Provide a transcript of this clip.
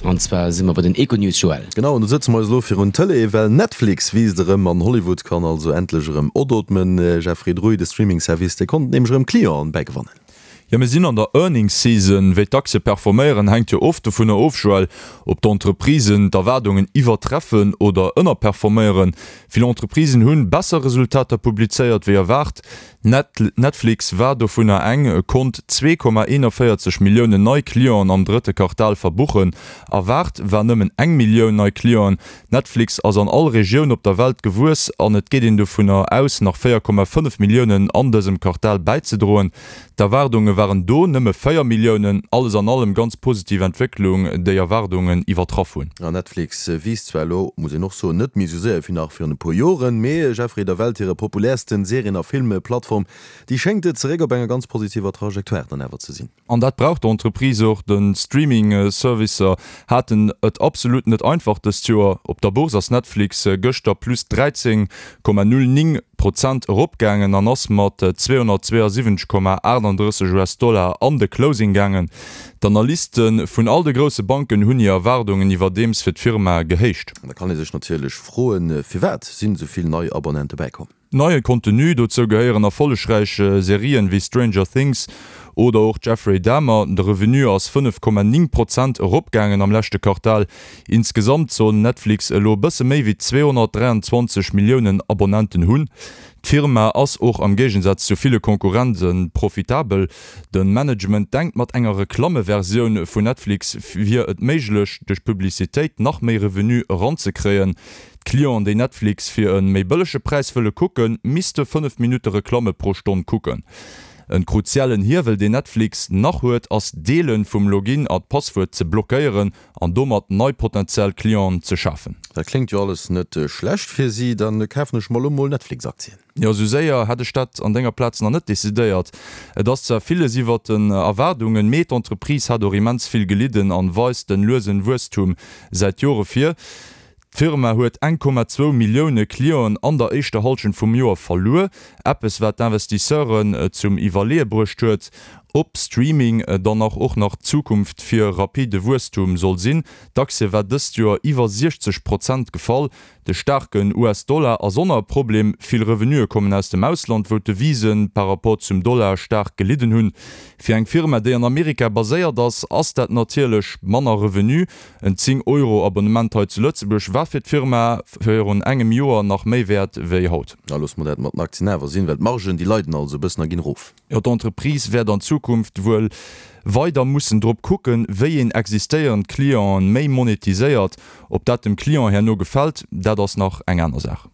An zwar si mer bei den Econews, Joël. Genau, an do sëtze mer eis elo virun d'Tëlee, well Netflix wiisst erëm an Hollywood kann also endlech erëm odootmen. Jeffrey Druy, de Streaming-Service, dee konnt nämlech erëm Clienten bäigewannen. Jo, mir sinn an der Earnings Season. Wéi d'Aktie performéieren, hänkt jo oft dovunner of, Joël, ob d'Entreprisen d'Erwaardungen iwwertreffen oder ënnerperforméieren. Vill Entreprisen hunn besser Resultater publizéiert wéi erwaart. Netflix war dovunner eng, konnt 2,41 Milliounen nei Clienten am drëtte Quartal verbuchen. Erwaart war nëmmen eng Millioun nei Clienten. Netflix ass an all Regioun op der Welt gewuess an et geet een dovunner aus, nach 4,5 Milliounen an dësem Quartal bäizedroen. D'Erwaardunge waren do nëmme 4 Milliounen. Alles an allem ganz positiv Entwécklung, déi Erwaardungen iwwertraff hunn. An Netflix wiisst zwar elo, muss een och soen, net méi esou séier wéi nach virun e puer Joren, mee Jeffrey, der Welt hire populärsten Serien a Filmplattform, déi schéngt zeréck op enger ganz positiver Trajectoire dann awer ze sinn. An dat brauch d'Entreprise och. De Streaming-Servicer haten et absolut net einfach dëst Joer. Op der Bourse ass Netflix gëschter plus 13,09 Prozent eropgaangen an ass mat 272,38 US-Dollar an de Closing gaangen. D'Analyste vun all de grousse Banken hunn hir Erwaardungen iwwerdeems fir d'Firma gehéicht. An da kann ee sech natierlech froen, Firwat sinn esou vill nei Abonnente bäikomm? Neie Contenu, dozou gehéieren erfollegräich Serien wéi Stranger Things oder och Jeffrey Dahmer. De Revenu ass 5,9 Prozent eropgaangen am leschte Quartal. Insgesamt soll Netflix elo e bësse méi wéi 223 Milliounen Abonnenten hunn. D'Firma ass och am Géigensaz zu ville Konkurrente profitabel. De Management denkt mat enger Reklammeversioun vun Netflix wier et méiglech duerch Publicitéit nach méi Revenu eranzekréien. D'Clienten, déi Netflix fir e méi bëllege Präis wëlle kucken, misste 5 Minutte Reklamme pro Stonn kucken. En kruziellen Hiewel, deen Netflix nach huet, ass d'Deele vum Login a d'Passwuert ze blockéieren an domat nei potentiell Clienten ze schafen. Dat kléngt jo alles net schlecht fir si. Dann kafen ech mer elo mol Netflix-Aktien. Jo, sou séier hätt ech dat an denger Plaz nach net decidéiert. Et ass zwar villes iwwert den Erwaardungen, mee d'Entreprise hat och immens vill gelidden an weist den luesen Wuesstum säit Jore vir. D'Firma huet 1,2 Millioune Clienten an der éischter Hallschent vum Joer verluer, eppes wat d'Investisseuren zum Iwwerleeë bruecht huet, ob Streaming dann nach och nach d'Zukunft fir rapide Wuesstum soll sinn. D'Aktie war dëst Joer iwwer 60 Prozent gefall. De staarken US-Dollar ass och nach e Problem. Vill Revenuë kommen aus dem Ausland, wou d'Devisen par rapport zum Dollar staark gelidden hunn. Fir eng Firma, déi an Amerika baséiert ass, ass dat natierlech manner Revenu. En 10 Euro Abonnement hei zu Lëtzebuerg war fir d'Firma virun engem Joer nach méi wäert wéi haut. Da loosse mer dat mat den Aktien awer sinn, well d'Margen, déi leiden also e bëssen a ginn erof. Jo, d'Entreprise wäert an Zukunft wuel weider mussen drop kucken, wéi een existéierend Clienten méi monetiséiert. Ob dat dem Client herno gefält, dat ass nach eng aner Saach.